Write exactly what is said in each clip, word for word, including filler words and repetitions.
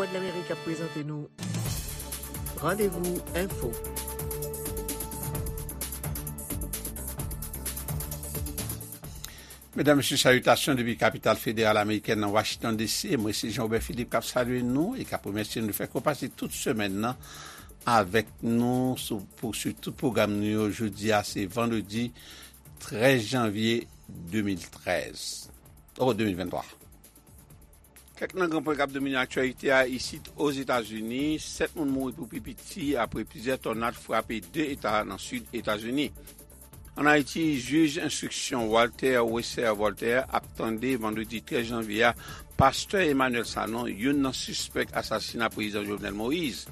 Vwadlamerik ap prezante nou Randevou Enfo. Medam, mesye, salitasyon depi kapital federal amerikèn nan Washington D C. Mwen se Jean Robert Philippe k ap salye nou e k ap remèsye nou fè konpati tout semèn nan avèk nou sou, pou swiv tout pwogram nou yo. Jodi a, se vandredi trèz janvye de mil trèz. Oh, de mil venntwa. Kèk nan gran pwen k ap domine aktyalite a isit Ozetazini, sèt moun mouri pou pi piti apre plizyè tònad frape de eta nan sid Etazini. Ann Ayiti, jij enstriksyon Walter Wesser Voltaire ap tande vandredi trèz janvye a pastè Emmanuel Sanon, youn nan sispèk asasina prezidan Jovenel Moïse.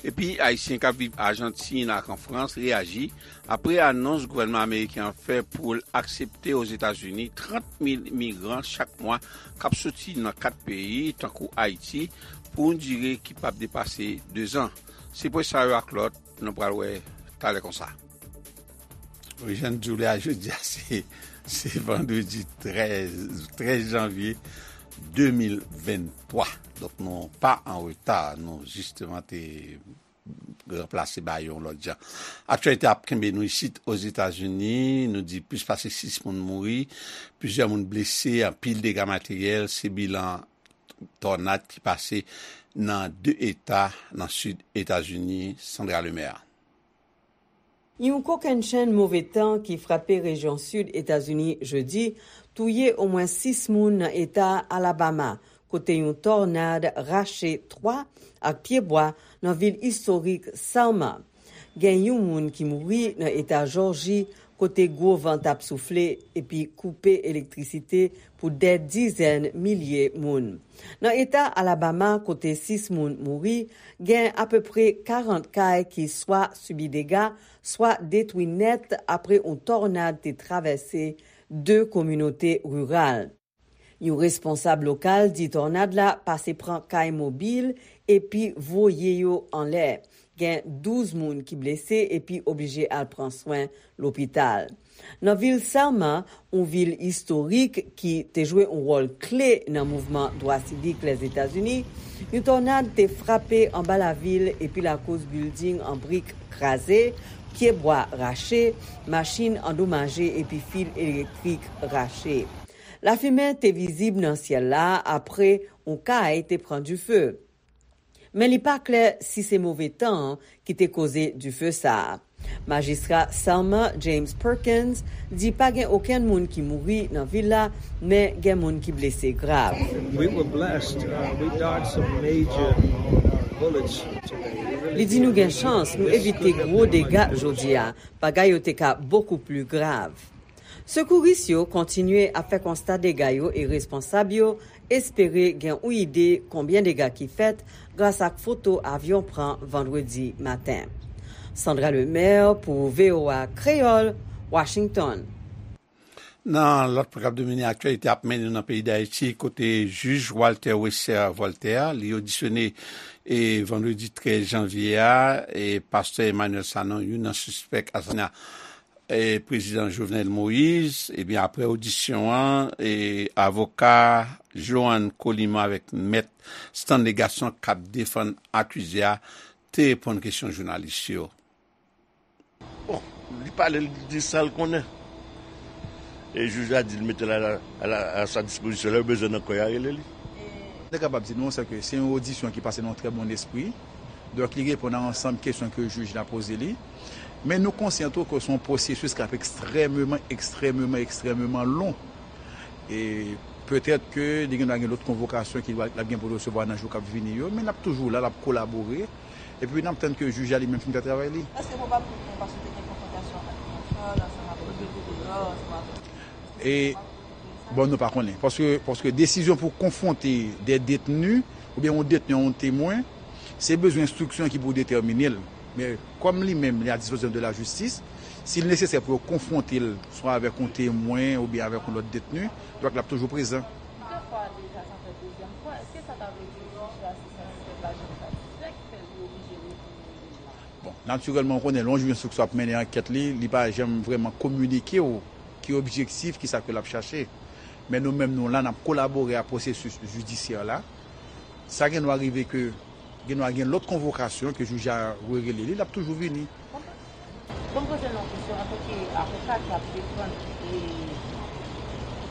Epi, Ayisyen k ap viv Ajantin ak an Frans reyaji apre anons gouvènman ameriken an fè pou l aksepte Ozetazini trant mil migran chak mwa k ap soti nan kat peyi, tankou Ayiti, pou yon dire ki p ap depase dezan. Se pwen sa yo ak lòt, nou pral wè talè konsa. Wi, jan n di w la, jodi a, se, se vandredi trèz, trèz janvye de mil venntwa. Donk, nou pa an reta, nou jisteman te ranplase ba yo yon lòt jan. Aktyalite ap kenbe nou isit Ozetazini, nou di plis pase sis moun mouri, plizyè moun blese, anpil dega materyèl, se bilan tònad ki pase nan de eta nan sid Etazini, Sandra Lemaire. Yon kokennchenn move tan ki frape rejyon sid Etazini jedi touye omwen sis moun nan eta Alabama, kote yon tònad rache twa ak pyebwa nan vil istorik Selma. Gen yon moun ki mouri nan eta Jòji, kote gwo van t ap soufle epi koupe elektrisite pou dè dizèn milye moun. Nan eta Alabama, kote sis moun mouri, gen apeprè karant kay ki swa sibi dega, swa detwi nèt apre yon tònad te travèse de kominote riral. Yon responsab lokal di tònad la pase pran kay mobil epi voye yo anlè. Gen douz moun ki blese epi oblije al pran swen lopital. Nan vil Selma, yon vil istorik ki te jwe yon wòl kle nan mouvman dwa sivik Lèzetazini, yon tònad te frape anba lavil epi lakoz bilding an brik kraze, pyebwa rache, machin andomaje epi fil elektrik rache. Lafimen te vizib nan syèl la apre yon kay te pran dife. Men li pa klè si se move tan an ki te koze dife sa a. Majistra Selma James Perkins di pa gen okenn moun ki mouri nan vil la, men gen moun ki blese grav. We were blessed. Uh, we dodged some major bullets today. Li di nou gen chans, nou evite gwo dega jodi a. Bagay yo te ka bokou pli grav. Sekouris yo kontinye ap fè konsta dega yo e responsab yo espere gen yon ide konbyen dega ki fèt gras ak foto avyon pran vandredi maten. Sandra Lemaire pou V O A Kreyòl, Washington. Nan lòt pwen k ap domine aktyalite ap mennen nou nan peyi Dayiti, kote jij Walter Wesser Voltaire, li odisyone e vandredi trèz janvye a, e pastè Emmanuel Sanon, youn nan sispèk asasina e prezidan Jovenel Moïse, ebyen, apre odisyon an, e avoka Joanne Coliman avèk mèt Stanley Gasson k ap defann akize a te reponn kesyon jounalis yo. Bon, li pale, li di sa l konnen. E jij la di l mete l a, a, a sa dispozisyon, lè yo bezwen nan kò yo, a rele li. Te kapab di nou, se ke se yon odisyon ki pase nan yon trè bon espri. Donk, li reponn a ansanm kesyon ke jij la poze li. Men nou konsyan tou ke se yon pwosesis k ap ekstrèmeman, ekstrèmeman, ekstrèmeman lon. E petèt ke li gen dwa gen lòt konvokasyon ke l ap gen pou l resevwa nan jou k ap vini yo, men l ap toujou la, l ap kolabore. Epi n ap tann ke jij la li menm fin fè travay li. Èske probab pou nou, paske te gen konfwontasyon ak Jean Charles ansanm ak Rodrigue Deor, ansanm ak E, bon, nou pa konnen. Paske, paske desizyon pou konfwonte de detni, oubyen yon detni a yon temwen, se bezwen enstriksyon ki pou detèmine l. Men, kòm li menm, li a dispozisyon de la jistis, si l nesesè pou yo konfwonte l, swa avèk yon temwen oubyen avèk yon lòt detni, donk l ap toujou prezan. Li te fwa deja, sa fè dezyèm fwa. Èske sa ta vle di jij la se satisfè, pa janm satisfè, ki fè li oblije retourne jij la? Bon, natirèlman, ou konnen, lè yon jij enstriksyon ap mennen ankèt li, li pa janm vrèman kominike w ki objektif, ki sa ke l ap chache. Men nou menm, nou la, n ap kolabore a pwosesis jidisyè la. Sa gen dwa rive ke gen dwa gen lòt konvokasyon ke jij a rerele li, l ap toujou vini. Bon, m poze l yon kesyon antanke avoka k ap defann e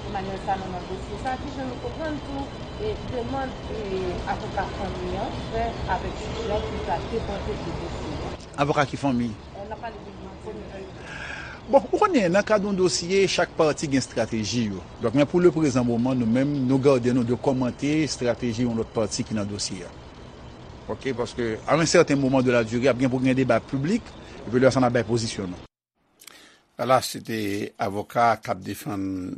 Emmanuel Sanon nan dosye sa, kijan nou konprann tou e demann e avoka fanmi an fè avèk jij la pou l ta depòte de dosye a? Avoka ki fanmi? N ap pale de fanmi. Bon, ou konnen, nan kad yon dosye, chak pati gen estrateji yo. Donk, men pou le prezan moman, nou menm, nou gade nou de kòmante estrateji yon lòt pati ki nan dosye a. Ok, paske a yon sèten moman de la dire, ap gen pou gen deba piblik, epi lè sa n ap bay pozisyon nou. Ala, se te avoka k ap defann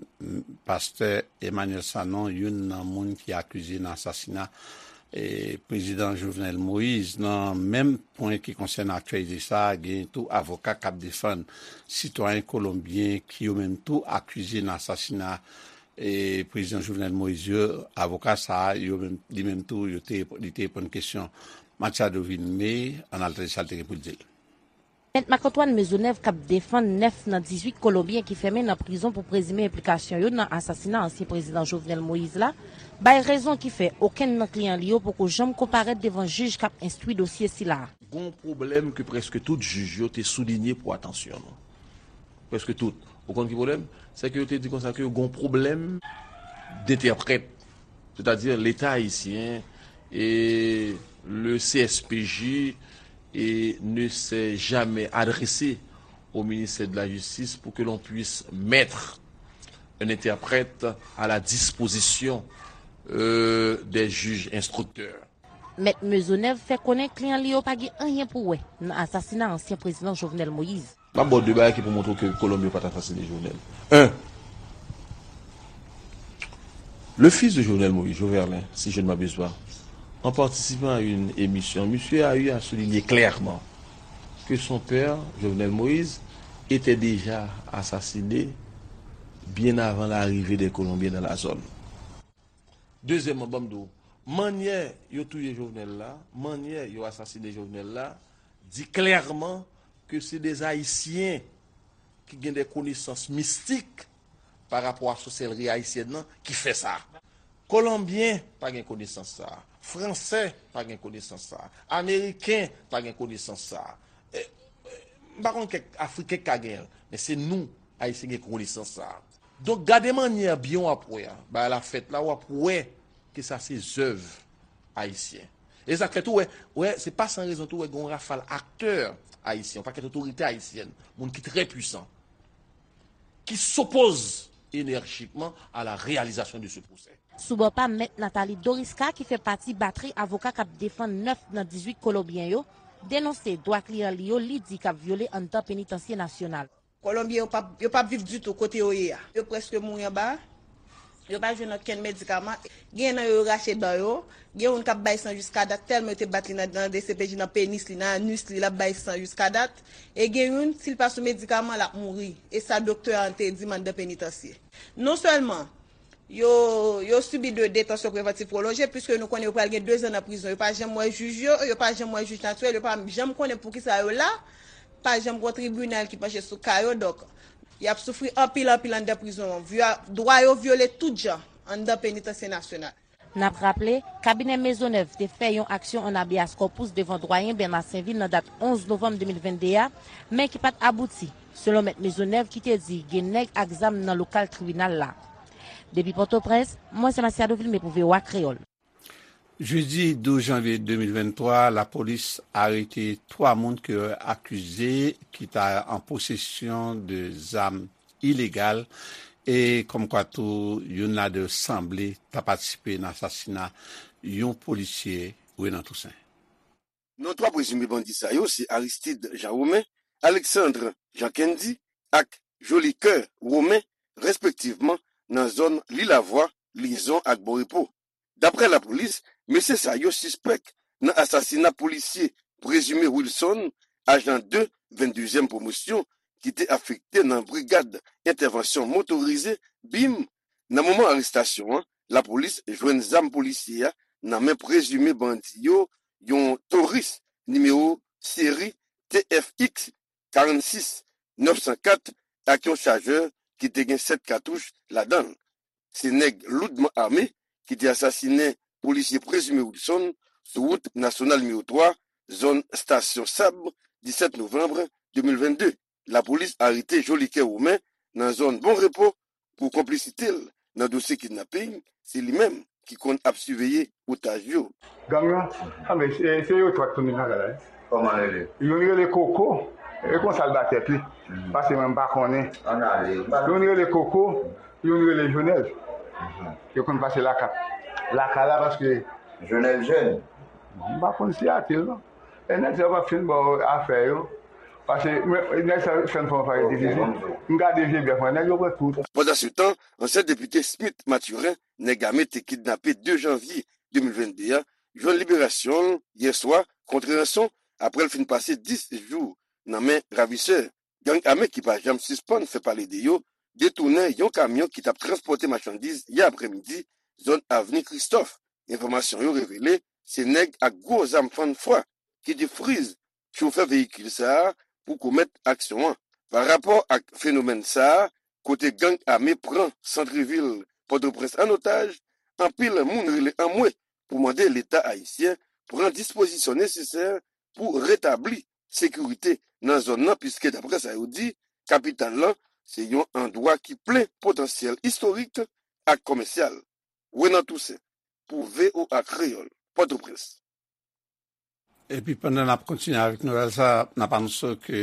pastè Emmanuel Sanon, youn nan moun ki akize nan asasina e, prezidan Jovenel Moïse. Nan menm pwen ki konsène aktyalite sa a, gen tou avoka k ap defann sitwayen kolonbyen ki yo menm tou akize nan asasina e, prezidan Jovenel Moïse yo. Avoka sa a, yo menm, li menm tou, yo te, li te reponn kesyon Machado Vilmé, ann al tande sa l te gen pou l di l. Mèt Marc Antoine Maisonneuve k ap defann nèf nan dizuit kolonbyen ki fèmen nan prizon pou prezime enplikasyon yo nan asasina ansyen prezidan Jovenel Moïse la, bay rezon ki fè okenn nan kliyan li yo poko janm konparèt devan jij k ap enstwi dosye sila a. Gon pwoblèm ke prèske tout jij yo te soulinye pou atansyon nou. Prèske tout. Ou konn ki pwoblèm? Se ke yo te di konsa ke gon pwoblèm dentèprèt. Sètadi Leta ayisyen e le C S P J et ne s'est jamais adressé au ministère de la Justice pour que l'on puisse mettre un interprète à la disposition euh, des juges instructeurs. Mèt Maisonneuve fè konnen kliyan li yo pa gen anyen pou wè nan asasina ansyen prezidan Jovenel Moïse. M ap ba w de bagay ki pou montre w ke Kolonbyen pa t asasine Jovenel. Un, le fils de Jovenel Moïse, Joverlin, si je ne m'abuse pas, en participant à une émission, monsieur a eu à souligner clairement que son père, Jovenel Moïse, était déjà assassiné bien avant l'arrivée des Colombiens dans la zone. Dezyèmman, ban m di w, mannyè yo touye Jovenel la, mannyè yo asasine Jovenel la, di klèman ke se de Ayisyen ki gen de konesans mistik pa rapò a sòsèlri ayisyèn nan ki fè sa. Kolonbyen pa gen konesans sa a. Fransè pa gen konesans sa a. Ameriken pa gen konesans sa a. E, e, m pa konn kèk Afriken k ka genyen l, men se nou, Ayisyen, gen konesans sa a. Donk, gade mannyè byen w ap wè a. Bagay la fèt la, w ap wè ke sa se zèv ayisyen. E sa k fè tou, wè, wè, se pa san rezon tou, wè, gen yon rafal aktè ayisyen, yon pakèt otorite ayisyèn, moun ki trè pwisan, ki s'opposent énergiquement à la réalisation de ce procès. Sou bò pa Mèt Nathalie Dorisca ki fè pati batri avoka k ap defann nèf nan dizuit kolonbyen yo, denonse dwa kliyan li yo li di k ap vyole anndan penitansye nasyonal. Kolonbyen yo p ap yo p ap viv ditou kote yo ye a. Yo prèske mouri anba a. Yo pa jwenn okenn medikaman. Gen nan yo yo rache dan yo. Gen youn k ap bay san jiska dat tèlman yo te bat li nan nan D C P J nan penis li, nan anus li, l ap bay san jiska dat. E gen youn, si l pa sou medikaman, l ap mouri. E sa doktè an te di m anndan penitansye. Non sèlman yo yo sibi de detansyon prevantiv pwolonje, piske nou konnen yo pral gen dezan nan prizon. Yo pa janm wè jij yo, yo pa janm wè jij natirèl, yo pa janm konnen poukisa yo la, pa janm gen yon tribinal ki panche sou ka yo, donk y ap soufri anpil anpil anndan prizon an. Vyo- Dwa yo vyole tout jan anndan penitansye nasyonal. N ap raple, kabinè Maisonneuve te fè yon aksyon an habeas corpus devan dwayen Bernard Sainvil nan dat onz novanm de mil vennde a, men ki pa t abouti, selon Mèt Maisonneuve ki te di gen nèg ak zam nan lokal tribinal la. Depi Pòtoprens, mwen se Masiado Vilmé pou V O A Kreyòl. Jedi douz janvye de mil venntwa, lapolis arete twa moun ke yo akize ki ta an posesyon de zam ilegal e kòmkwa tou youn ladan yo sanble ta patisipe nan asasina yon polisye, Renan Toussaint. Non twa prezime bandi sa yo se Aristide Jean Romain, Alexandre Jean Kendy ak Jolicoeur Romain, respektivman, nan zòn Lilavwa, Lizon ak Bon Repo. Daprè lapolis, mesye sa yo sispèk nan asasina polisye prezime Wilson, ajan de venndezyèm pwomosyon, ki te afekte nan Brigad Entèvansyon Motorize, bim. Nan moman arestasyon an, lapolis jwenn zam polisye a nan men prezime bandi yo, yon Taurus nimewo seri T F X karannsis nèf san kat, ak yon chajè ki te gen sèt katouch ladan l. Se nèg loudman ame ki te asasinen polisye prezime Wilson sou wout nasyonal nimewo twa, zòn Stasyon Sab, disèt novanm de mil vennde. Lapolis arete Jolikè Romain nan zòn Bon Repo pou konplisite l nan dosye kidnaping. Se li menm ki konn ap siveye otaj yo. Gang nan, anben, se, se yo twa k tounen nan la, la. Kòman rele? Youn rele Koko, e konsa l ba tèt li. Mhm. Pase mwen, m pa konnen. Ann ale. Youn rele Koko, youn rele Jonèl. Mhm. Yo konn pase laka-, lakay la paske Jonèl jèn. M pa konn siyati l, non. E nèg sa yo p ap fin ba w afè yo. Paske, men, nèg sa yo fè m fè yon parèy difisil. M gade vye bèf mwen, nèg yo pran tout. Pandansetan, ansyen depite Smith Mathurin, nèg ame te kidnape de janvye de mil vennde a, jwenn liberasyon l yè swa kont ranson apre l fin pase dis jou nan men ravisè. Gang ame ki pa janm sispann fè pale de yo detounen yon kamyon ki t ap transpòte machandiz yè aprèmidi, zòn Avni Kristòf. Enfòmasyon yo revele se nèg ak gwo zam fann fwa ki te friz chofè veyikil sa a pou komèt aksyon an. Pa rapò ak fenomèn sa a, kote gang ame pran santrevil Pòtoprens an otaj, anpil moun rele anmwe pou mande Leta ayisyen pran dispozisyon nesesè pou retabli sekirite nan zòn nan, piske, daprè sa yo di, kapital lan se yon andwa ki plen potansyèl istorik ak komèsyal. Renan Toussaint, pou V O A Kreyòl, Pòtoprens. Epi pandan n ap kontinye avèk nouvèl sa, n ap anonse ke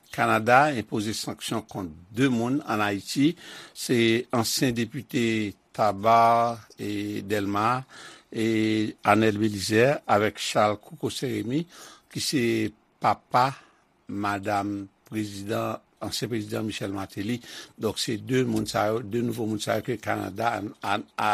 Kanada enpoze sanksyon kont de moun ann Ayiti. Se ansyen depite Taba e Dèlma, e Arnel Belizaire avèk Charles Coco Saint-Rémy, ki se papa madanm prezidan, ansyen prezidan Michel Martelly. Donk, se de moun sa yo, de nouvo moun sa yo ke Kanada a, a, a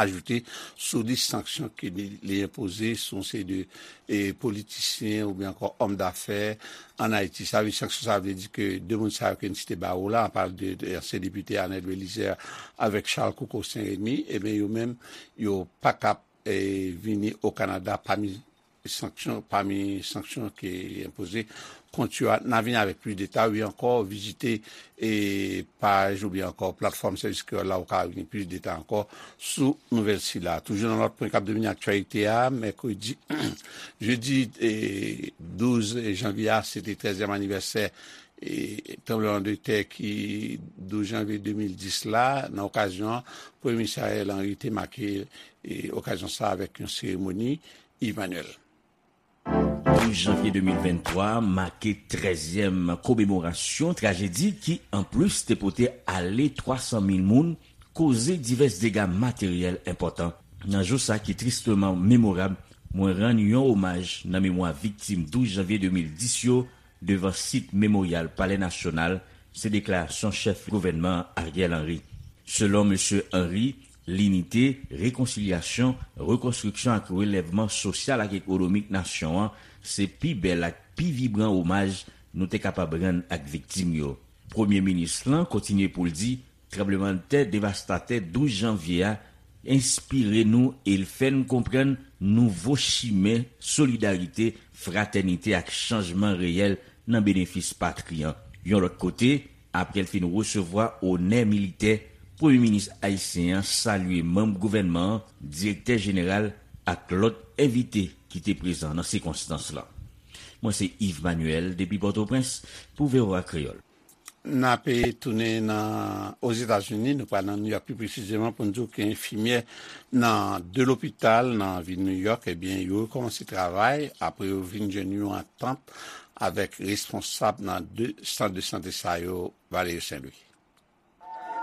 ajoute sou lis sanksyon ke li, li enpoze sou yon seri de, e, politisyen oubyen ankò òm dafè ann Ayiti. Sa vle, sanksyon sa vle di ke de moun sa yo ke n site ba ou la, an pale de, de ansyen depite Arnel Belizaire avèk Charles Coco Saint-Rémy, ebyen, yo menm, yo pa kab, e, vini o Kanada pami sanksyon, pami sanksyon ki enpoze kont yo a. N a vini avèk plis detay, wi, ankò, vizite, e, paj oubyen ankò platfòm Sèvis Kreyòl la, ou ka vini plis detay ankò sou nouvèl sila. Toujou nan lòt pwen k ap domine aktyalite a, mèkredi, jedi, e, douz janvye a, se te trèzyèm anivèsè, e, tranblemanntè ki douz janvye de mil dis la. Nan okazyon an, Premye Minis Ariel Henry te make, e, okazyon sa avèk yon seremoni. Yves Manuel. Douz janvye de mil venntwa make trèzyèm komemorasyon trajedi ki, anplis, te pote ale twa san mil moun, koze divès dega materyèl enpòtan. Nan jou sa ki tristeman memorab, mwen rann yon omaj nan memwa viktim douz janvye de mil dis yo devan sit Memoryal Palè Nasyonal, se deklarasyon chèf gouvènman an, Ariel Henry. Selon mesye Henry, linite, rekonsilyasyon, rekonstriksyon ak relèvman sosyal ak ekonomik nasyon an se pi bèl ak pi vibran omaj nou te kapab rann ak viktim yo. Premye minis lan kontinye pou l di, tranblemanntè devastatè douz janvye a enspire nou e l fè n konprann nouvo chimen solidarite, fratènite ak chanjman reyèl nan benefis patri an. Yon lòt kote, apre l fin resevwa onè militè, Premye Minis ayisyen an salye manm gouvènman an, direktè jeneral ak lòt envite ki te prezan nan sikonstans lan. Mwen se Yves Manuel depi Pòtoprens pou V O A Kreyòl. N ape tounen nan Ozetazini, nou pral nan Nouyòk pi presizeman pou n di w ke enfimyè nan de lopital nan vil Nouyòk, ebyen, yo rekòmanse travay apre yo vin jwenn yon antant avèk responsab nan de sant de sante sa yo, Valerio Saint-Louis.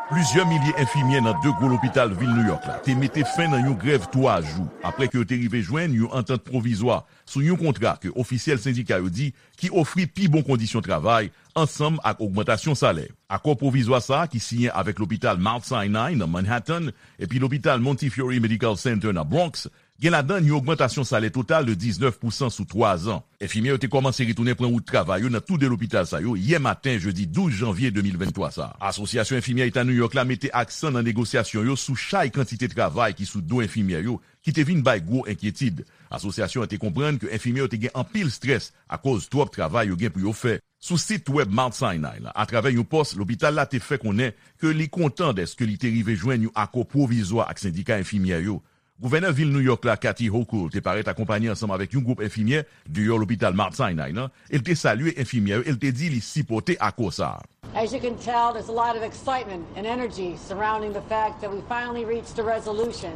Plizyè milye enfimyè nan de gwo lopital vil Nouyòk la te mete fen nan yon grèv twa jou apre ke yo te rive jwenn yon antant pwovizwa sou yon kontra ke ofisyèl sendika yo di ki ofri pi bon kondisyon travay ansanm ak ogmantasyon salè. Akò pwovizwa sa a ki siyen avèk lopital Mount Sinai nan Manhattan epi lopital Montefiore Medical Center nan Bronx gen ladan l yon ogmantasyon salè total de diznèf pousan sou twa zan. Enfimyè yo te kòmanse retounen pran wout travay yo nan tou de lopital sa yo yè maten jedi douz janvye de mil venntwa sa a. Asosyasyon Enfimyè Eta Nouyòk la mete aksan nan negosyasyon yo sou chay kantite travay ki sou do enfimyè yo, ki te vin bay gwo enkyetid. Asosyasyon an te konprann ke enfimyè yo te gen anpil estrès akoz twòp travay yo gen pou yo fè. Sou sit wèb Mount Sinai la, atravè yon pòs, lopital la te fè konnen ke li kontan dèske li te rive jwenn yon akò pwovizwa ak sendika enfimyè yo. Gouvènè vil New York la, Kathy Hochul, te parèt akonpanye ansanm avèk yon gwoup enfimyè deyò lopital Mount Sinai nan, e l te salye enfimyè yo e l te di li sipòte akò sa a. As you can tell, there's a lot of excitement and energy surrounding the fact that we finally reached a resolution.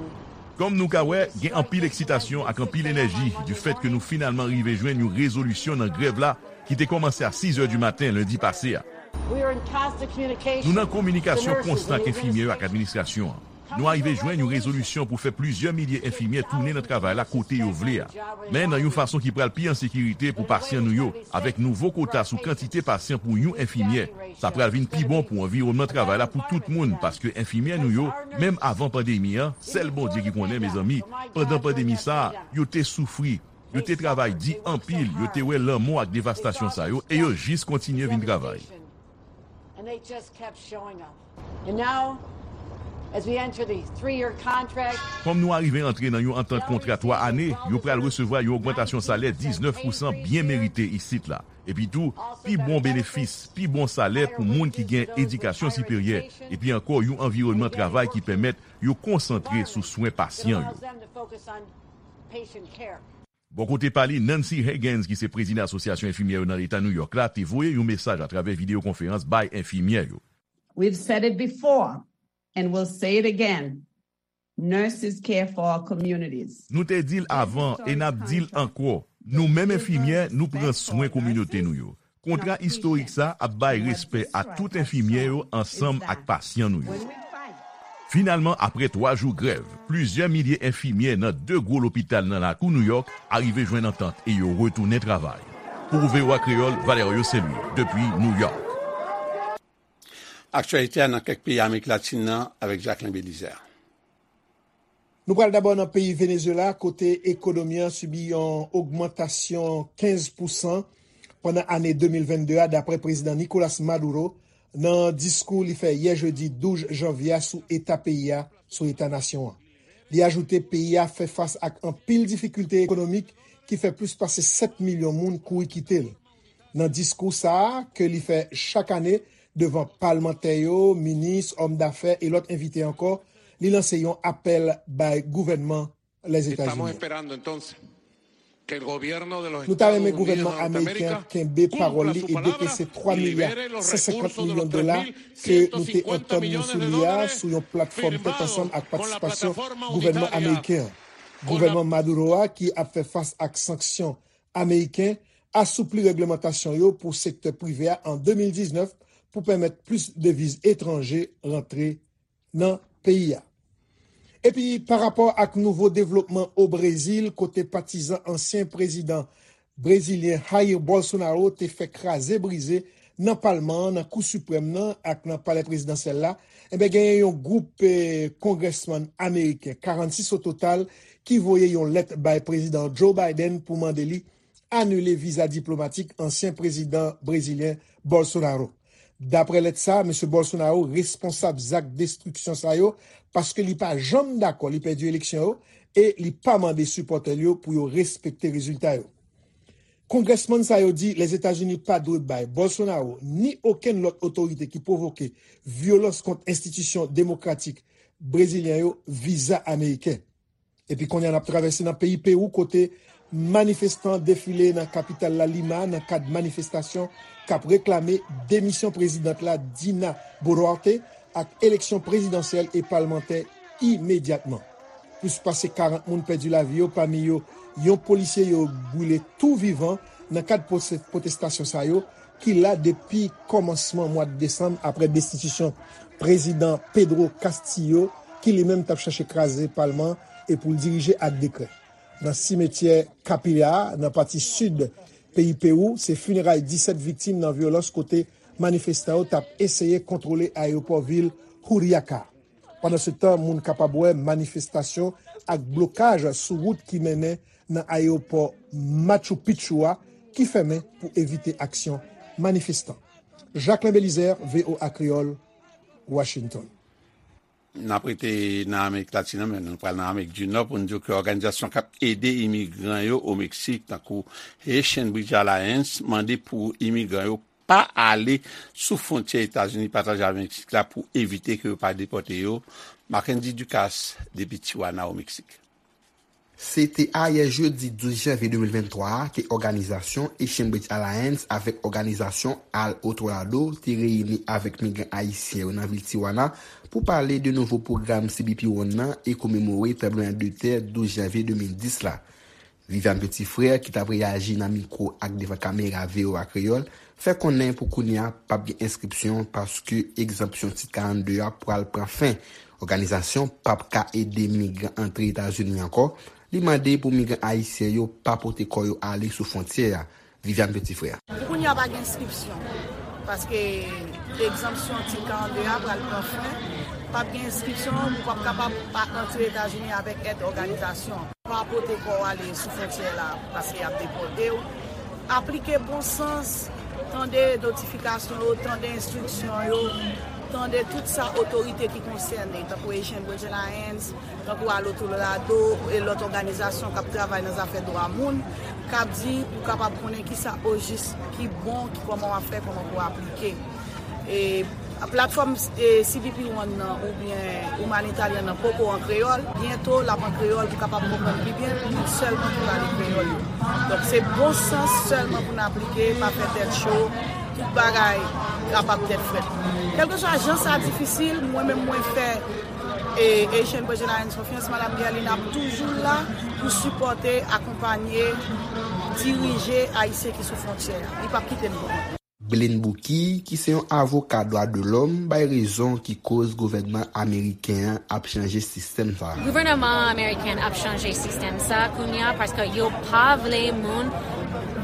Kòm nou ka wè, gen anpil eksitasyon ak anpil enèji di fèt ke nou finalman rive jwenn yon rezolisyon nan grèv la ki te kòmanse a sizè di maten lendi pase a. We are in constant communication. Nou nan kominikasyon konstan ak enfimyè yo ak administrasyon an. Nou arive jwenn yon rezolisyon pou fè plizyè milye enfimyè tounen nan travay la kote yo vle a. Men nan yon fason ki pral pi an sekirite pou pasyan nou yo, avèk nouvo kota sou kantite pasyan pou yon enfimyè. Sa pral vin pi bon pou anviwònman travay la pou tout moun, paske enfimyè nou yo, menm avan pandemi an, sèl Bondye ki konnen, mezanmi, pandan pandemi sa a, yo te soufri, yo te travay di anpil, yo te wè lanmò ak devastasyon sa yo, e yo jis kontinye vin travay. And they just kept showing up. And now, as we enter the three-year contract, Kòm nou arive antre nan yon antant kontra twa ane, yo pral resevwa yon ogmantasyon salè diznèf pousan byen merite isit la. Epi tou, pi bon benefis, pi bon salè pou moun ki gen edikasyon siperyè, epi ankò yon anviwònman travay ki pèmèt yo konsantre sou swen pasyan yo. Bò kote pa li, Nancy Higgins, ki se prezidan Asosyasyon Enfimyè yo nan Eta New York la, te voye yon mesaj atravè videyo konferans bay enfimyè yo. We've said it before and we'll say it again. Nurses care for our communities. Nou te di l avan e n ap di l ankò. Nou menm enfimyè, nou pran swen kominote nou yo. Kontra istorik sa ap bay respè a tout enfimyè yo ansanm ak pasyan nou yo. Finalman, apre twa jou grèv, plizyè milye enfimyè nan de gwo lopital nan lakou New York arive jwenn antant e yo retounen travay. Pou V O A Kreyòl, Valerio Saint-Louis, depi New York. Aktyalite a nan kèk peyi Amerik Latin nan avèk Jacquelin Belizaire. Nou pral dabò nan peyi Venezuela, kote ekonomi an sibi yon ogmantasyon kenz pousan pandan ane de mil vennde a, dapre Prezidan Nicolas Maduro, nan diskou li fè yè jedi douz janvye a sou eta peyi a, sou eta nasyon an. Li ajoute peyi a fè fas ak anpil difikilte ekonomik ki fè plis pase sèt milyon moun kouri kite l. Nan diskou sa a, ke li fè chak ane devan palmantè yo, minis, òm dafè e lòt envite ankò, li lanse yon apèl bay gouvènman Lèzetazini. Nou ta renmen gouvènman ameriken an kenbe pawòl li e dekese twa milya san senkant milyon dola ke nou te antann nou sou li a sou yon platfòm tèt ansanm ak patisipasyon gouvènman ameriken an. Gouvènman Maduro a, ki ap fè fas ak sanksyon ameriken, asoupli règlemantasyon yo pou sektè prive a an de mil diznèf pou pèmèt plis deviz etranje rantre nan peyi a. Epi, pa rapò ak nouvo devlopman o Brezil, kote patizan ansyen prezidan brezilyen Jair Bolsonaro te fè kraze brize nan palman an, nan Kou Siprèm nan ak nan palè prezidansyèl la, enben, genyen yon gwoup, eh, kongrèsmann ameriken, karannsis o total, ki voye yon lèt bay prezidan Joe Biden pou mande li anile viza diplomatik ansyen prezidan brezilyen Bolsonaro. Dapre lèt sa, mesye Bolsonaro responsab zak destriksyon sa yo paske li pa janm dakò li pèdi eleksyon yo e li pa mande sipòtè l yo pou yo respekte rezilta yo. Kongrèsmann sa yo di Lèzetazini pa dwe bay Bolsonaro ni okenn lòt otorite ki pwovoke vyolans kont enstitisyon demokratik brezilyen yo viza ameriken. Epi kounye a n ap travèse nan peyi Pewou kote manifestan defile nan kapital la Lima nan kad manifestasyon k ap reklame demisyon prezidant la Dina Boluarte ak eleksyon prezidansyèl e palmantè imedyatman. Plis pase karant moun pèdi lavi yo, pami yo yon polisye yo brile tou vivan nan kad pwotestasyon sa yo ki la depi kòmansman mwa desanm apre destitisyon prezidan Pedro Castillo, ki li menm t ap chache kraze palman e pou l dirije ak dekrè. Nan simetyè Capilla, nan pati sid peyi Pewou, se fineray disèt viktim nan vyolans kote manifestan yo t ap eseye kontwole ayewopò vil Juliaca. Pandansetan, moun kapab wè manifestasyon ak blokaj sou wout ki mennen nan ayewopò Machu Picchu a ki fèmen pou evite aksyon manifestan. Jacquelin Belizaire, V O A Kreyòl, Washington. N ap rete nan Amerik Latin nan, men nou pral nan Amerik di Nò pou n di w ke òganizasyon k ap ede imigran yo o Meksik, tankou Haitian Bridge Alliance, mande pou imigran yo pa ale sou fwontyè Etazini pataje avèk Meksik la pou evite ke yo pa depòte yo. Mackendy Ducasse, depi Tijuana, o Meksik. Se te ayè jedi douz janvye de mil venntwa a ke òganizasyon Haitian Bridge Alliance avèk òganizasyon Al Otro Lado te reyini avèk migran ayisyen yo nan vil Tijuana pou pale de nouvo pwogram C B P One nan e komemore tranblemanntè douz janvye de mil dis la. Viviane Petit-Frère, ki t ap reyaji nan mikwo ak devan kamera V O A Kreyòl, fè konnen pou kounye a p ap gen enskripsyon paske egzanpsyon Tit karannde a pral pran fen. Òganizasyon p ap ka ede migran antre Etazini ankò. Li mande pou migran ayisyen yo pa pote kò yo ale sou fwontyè a. Viviane Petit-Frère. Pou kounye a pa gen enskripsyon, paske egzanpsyon Tit karannde a pral pran fen. P ap gen enskripsyon, ou p ap kapab pa antre Etazini avèk èd òganizasyon. Pa pote kò w ale sou fwontyè la, paske y ap depòte w. Aplike bon sans, tande notifikasyon yo, tande enstriksyon yo, tande tout sa otorite ki konsène, tankou Haitian Bridge Alliance, tankou Al Otro Lado e lòt òganizasyon k ap travay nan zafè dwa moun, k ap di pou kapab konnen kisa ojis ki bon, ki kòman w ap fè, kòman pou w aplike. E platfòm, e, C B P One nan oubyen Humanitarian nan poko an kreyòl, byento l ap an kreyòl pou kapab konprann pi byen, moun sèlman ki pale kreyòl yo. Donk se bon sans sèlman pou n aplike, pa fè tèt cho, tout bagay kapab tèt frèt. Kèlkeswa jan sa difisil, mwen menm mwen fè e Haitian Bridge Alliance konfyans, Madanm Guerline ap toujou la pou sipòte, akonpanye, dirije Ayisyen ki sou fwontyè a. Li p ap kite n pou kont nou. Blaine Bouquille, ki se yon avoka dwa de lòm, bay rezon ki koz gouvènman ameriken an ap chanje sistèm sa a. Gouvènman ameriken ap chanje sistèm sa a kounye a paske yo pa vle moun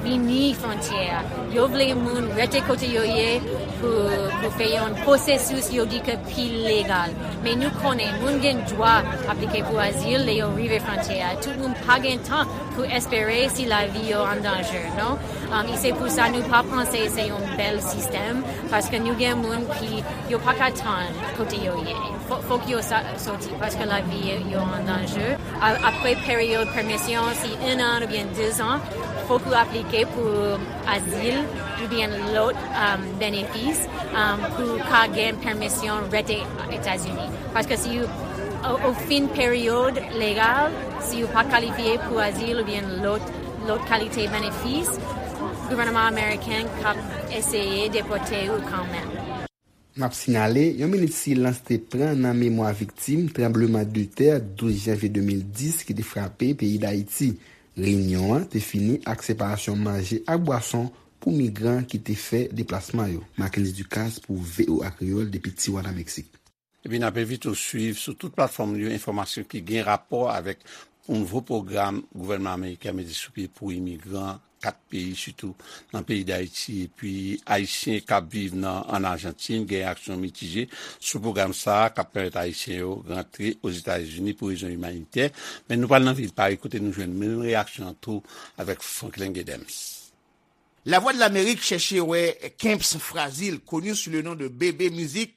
vini fwontyè a. Yo vle moun rete kote yo ye pou, pou fè yon pwosesis yo di ke pi legal. Men nou konnen moun gen dwa aplike pou azil lè yo rive fwontyè a. Tout moun pa gen tan pou espere si lavi yo an danje, non? Um, e se pou sa nou pa panse se yon bèl sistèm, paske nou gen moun ki yo pa ka tann kote yo ye. Fò, fòk yo sa, soti, paske lavi yo an danje. A, apre peryòd pèmisyon, si en an oubyen de zan, fòk ou aplike pou azil oubyen lòt, um, benefis, um, pou ka gen pèmisyon rete Etazini. Paske si ou, ou, ou fin peryòd legal, si ou pa kalifye pou azil oubyen lòt, lòt kalite benefis, gouvènman ameriken k ap eseye depòte ou kanmenm. N ap sinyale, yon minit silans te pran nan memwa viktim tranbleman de tè douz janvye de mil dis ki te frape peyi Dayiti. Reyinyon an te fini ak separasyon manje ak bwason pou migran ki te fè deplasman yo. Mackendy Ducasse pou V O A Kreyòl depi Tijuana, Meksik. Epi n ap envite w swiv sou tout platfòm yo enfòmasyon ki gen rapò avèk yon nouvo pwogram gouvènman ameriken ap mete sou pye pou imigran kat peyi, sitou nan peyi Dayiti. Epi Ayisyen k ap viv nan, ann Ajantin gen reyaksyon mitije sou pwogram sa a k ap pèmèt Ayisyen yo rantre Ozetazini pou rezon imanitè. Men nou pral nan vil Pari kote nou jwenn menm reyaksyon an tou avèk Franklin Gedems. La Voix de l'Amérique chèche wè Kemps Frazil, connu sous le nom de Bébé Musique.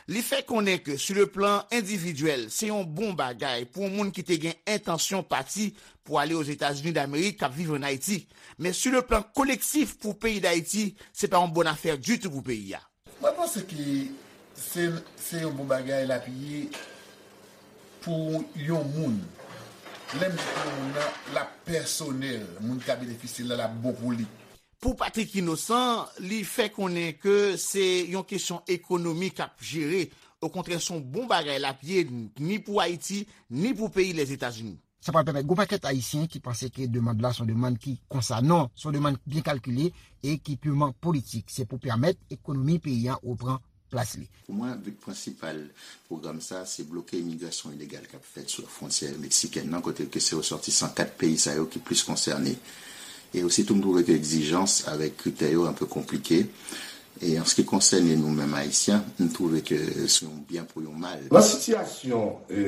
Li fè konnen ke, sur le plan individuel, se yon bon bagay pou yon moun ki te gen entansyon pati pou ale Ozetazini Damerik, k ap viv ann Ayiti. Men sur le plan collectif, pou peyi Dayiti, se pa yon bòn afè ditou pou peyi a. Mwen panse ke se, se yon bon bagay l ap ye pou yon moun. Lè m di pou yon moun nan, l ap pèsonèl. Moun ki ka benefisye l la, l ap bon pou li. Pou Patrick Innocent, li fè konnen ke se yon kesyon ekonomi k ap jere. Okontrè, se yon bon bagay l ap ye, ni pou Ayiti, ni pou peyi Lèzetazini. Sa pral pèmèt gwo pakèt Ayisyen ki panse ke demann la se yon demann ki konsa. Non, se yon demann byen kalkile e ki piman politik. Se pou pèmèt ekonomi peyi a repran plas li. Pou mwen, bi prensipal pwogram sa, se bloke imigrasyon ilegal k ap fèt sou fwontyè meksikèn nan, kote ke se resòtisan kat peyi sa yo ki plis konsène. E osi tou, m twouve ke egzijans avèk kritè yo enpe konplike. E an se ki konsène nou menm Ayisyen, m twouve ke se yon byen pou yon mal. Nan sitiyasyon, e,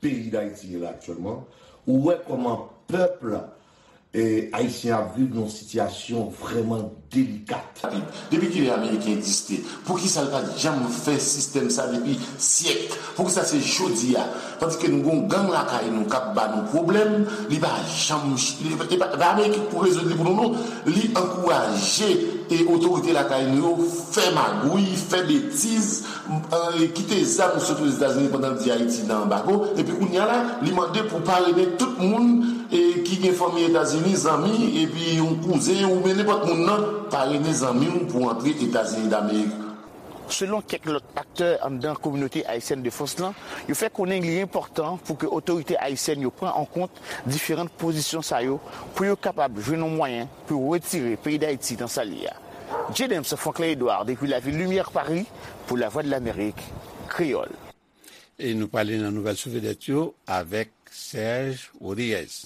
peyi Dayiti ye la aktyèlman, ou wè kòman pèp la, E, Ayisyen ap viv nan yon sitiyasyon vrèman delikat. Depi kilè Ameriken egziste? Poukisa l pa t janm fè sistèm sa depi syèk? Poukisa se jodi a? Tandis ke nou gen yon gang lakay nou k ap ba nou pwoblèm, li pa janm, li pa, li pa, pa Ameriken k pou rezoud li pou nou, non. Li ankouraje e otorite lakay nou yo fè magouy, fè betiz, e, kite zam sot Ozetazini pandan l di Ayiti nan anbago, epi kounye a la, li mande pou parene tout moun, e, ki gen fanmi Etazini, zanmi, epi yon kouzen oubyen nenpòt moun nan, parene zanmi w pou antre Etazini Damerik. Selon kèk lòt aktè anndan kominote ayisyèn de Frans lan, yo fè konnen li enpòtan pou ke otorite ayisyèn yo pran an kont diferan pozisyon sa yo pou yo kapab jwenn yon mwayen pou yo retire peyi Dayiti nan sa l ye a. James Franklin Edouard depi lavil Limyè Pari pou Lavwadlamerik Kreyòl. E nou prale nan nouvèl sou vedèt yo avèk Serge Rodriguez.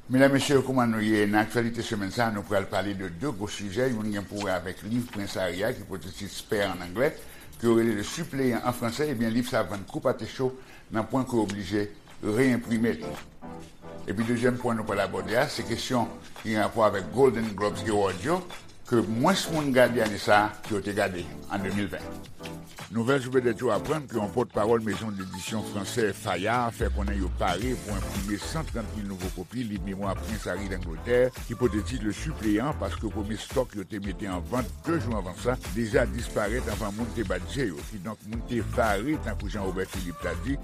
Medam, mesye, kouman nou ye? Nan aktyalite semèn sa a, nou pral pale de de gwo sijè. Youn gen pou wè avèk liv Prens Harry a, ki pote tit Spare an anglè, ke yo rele Le Suppléant an fransè. Ebyen, liv sa a vann kou pate cho nan pwen ke yo oblije reyenprime l. Epi dezyèm pwen nou pral abòde a, se kesyon ki gen rapò avèk Golden Globes Award yo, ke mwens moun gade ane sa a ke yo te gade an de mil ven. Nouvèl sou vedèt yo aprann ke yon pòtpawòl mezon dedisyon fransè Fayard fè konnen yo pare pou enprime san trant mil nouvo kopi liv memwa Prens Harry Langletè ki pote tit Le Suppléant, paske premye stòk yo te mete an vant de jou anvan sa deja disparèt anvan moun te bat je yo. Kidonk, moun te vare, tankou Jean Robert Philippe ta di,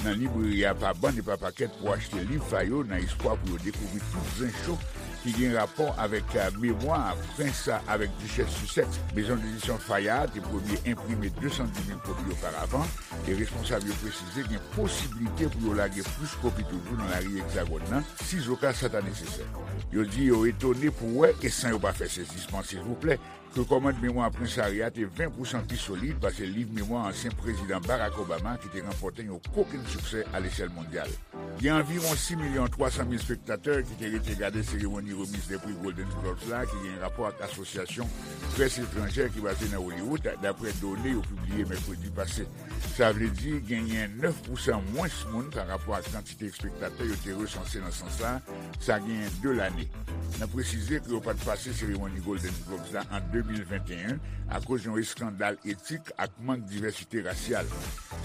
nan libreri a pa bann e pa pakèt pou achte liv sa yo, nan espwa pou yo dekouvri tout zen cho ki gen rapò avèk, eh, memwa prens avèk dichès Sussex. Mezon dedisyon Fayard te premye enprime de san dis mil kopi oparavan, e responsab yo presize gen posiblite pou yo lage plis kopi toujou nan lari Egzagòn nan, sizoka sa ta nesesè. Yo di yo etone pou wè, e san yo pa fè sezisman, silvouplè, ke kòmand memwa Prens Harry a te ven pousan pi solid pase liv memwa ansyen prezidan Barack Obama ki te ranpòte yon kokenn siksè alechèl mondyal. Gen anviwon sis milyon twa san mil spektatè ki te rete gade seremoni remiz de pri Golden Globes la, ki gen rapò ak Asosyasyon Près Etranjè ki baze nan Hollywood, daprè done yo pibliye mèkredi pase. Sa vle di genyen nèf pousan mwens moun pa rapò ak kantite espektatè yo te resanse nan sans la, sa genyen de lane. N ap presize ke yo pa t pase seremoni Golden Globes la an de mil venteyen akoz yon eskandal etik ak mank divèsite rasyal.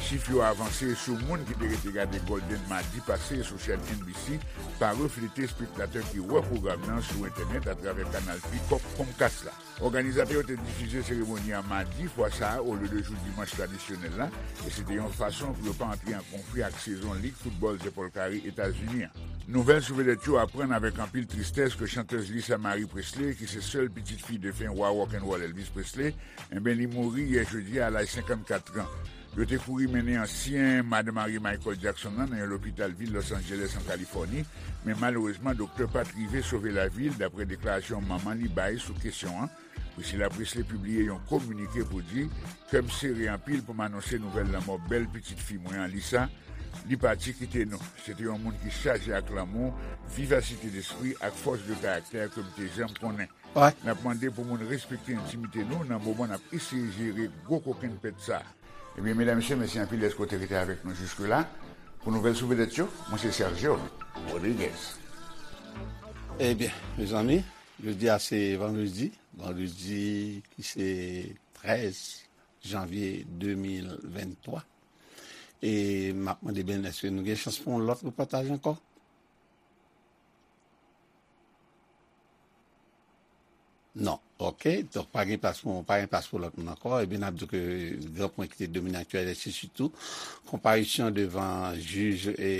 Chif yo avanse sou moun ki te rete gade Golden madi pase sou chèn N B C pa reflete espektatè ki wè pwogram nan sou entènèt atravè kanal Peacock Comcast la. Òganizatè yo te difize seremoni an madi fwa sa a olye de jou dimanch tradisyonèl la, e se te yon fason pou yo pa antre an konfli ak sezon lig foutbòl zèpòl kare Etazini an. Nouvèl sou vedèt yo aprann avèk anpil tristès ke chantèz Lisa Marie Presley, ki se sèl pitit fi defen wa rock'n'roll Elvis Presley, enben, li mouri yè jedi a, a laj senkannkat an. Yo te kouri mennen ansyen madanm marye Michael Jackson nan nan yon lopital vil Los Angeles an Kalifòni, men malerezman, doktè pa t rive sove lavi l, daprè deklarasyon manman li bay sou kesyon an. Priscilla Presley pibliye yon kominike pou di, kè m sere anpil pou m anonse nouvèl lanmò bèl pitit fi mwen an, Lisa. Li pati kite nou. Se te yon moun ki chaje ak lanmou, vivasite despri ak fòs de karaktè ke m te janm konnen. N ap mande pou moun respekte entimite nou nan moman n ap eseye jere gwo kokenn pèt sa a. Ebyen, medam, mesye, mèsi anpil dèske w te rete avèk nou jiske la. Pou nouvèl sou vedèt yo, mwen se Sergio Rodriguez. Ebyen, mezanmi, jodi a se vandredi. Vandredi ki se trèz janvye de mil venntwa. E m ap mande, Ben, èske nou gen chans pou yon lòt repòtaj ankò? Non. Oke. Donk, pa gen plas pou, pa gen plas pou lòt moun ankò. Ebyen, n ap di ke gran pwen ki te domine aktyalite, se sitou konparisyon devan jij, e,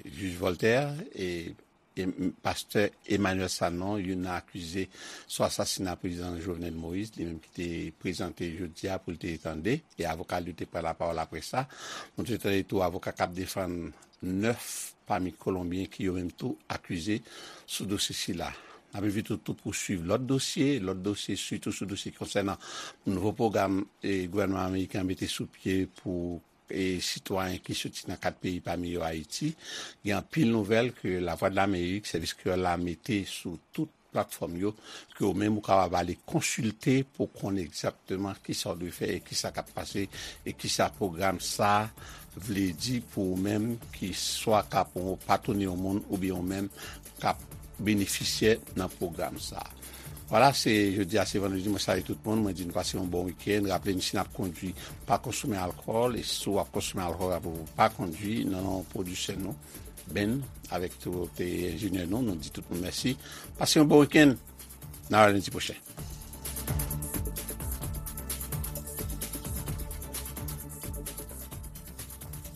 jij Voltaire, e, e, pastè Emmanuel Sanon, youn nan akize sou asasina prezidan Jovenel Moïse, li menm ki te prezante jodi a pou l te tande, e avoka l yo te pran lapawòl apre sa. Nou te tande tou avoka k ap defann nèf pami Kolonbyen ki yo menm tou akize sou dosye sila. N ap envite w tou pou swiv lòt dosye, lòt dosye, sitou sou dosye ki konsènan nouvo pwogram, e, gouvènman ameriken an mete sou pye pou, e, sitwayen ki soti nan kat peyi, pami yo Ayiti. Gen anpil nouvèl ke Lavwadlamerik, sèvis kreyòl la, mete sou tout platfòm yo, ke ou menm ou kapab ale konsilte pou konn egzakteman kisa w dwe fè e kisa k ap pase e kisa pwogram sa vle di pou ou menm ki swa k ap patwone yon moun oubyen ou menm k ap benefisyè nan pwogram sa a. Vwala, se jodi a, se vandredi, mwen salye tout moun, mwen di nou pase yon bon wikenn. Raple n, si n ap kondwi, pa konsome alkòl, e si w ap konsome alkòl, raple w, pa kondwi, nan non pwodiktè nou, Ben, avèk tout enjenyè nou, nou di tout moun mèsi. Pase yon bon wikenn, nan lendi pwochen.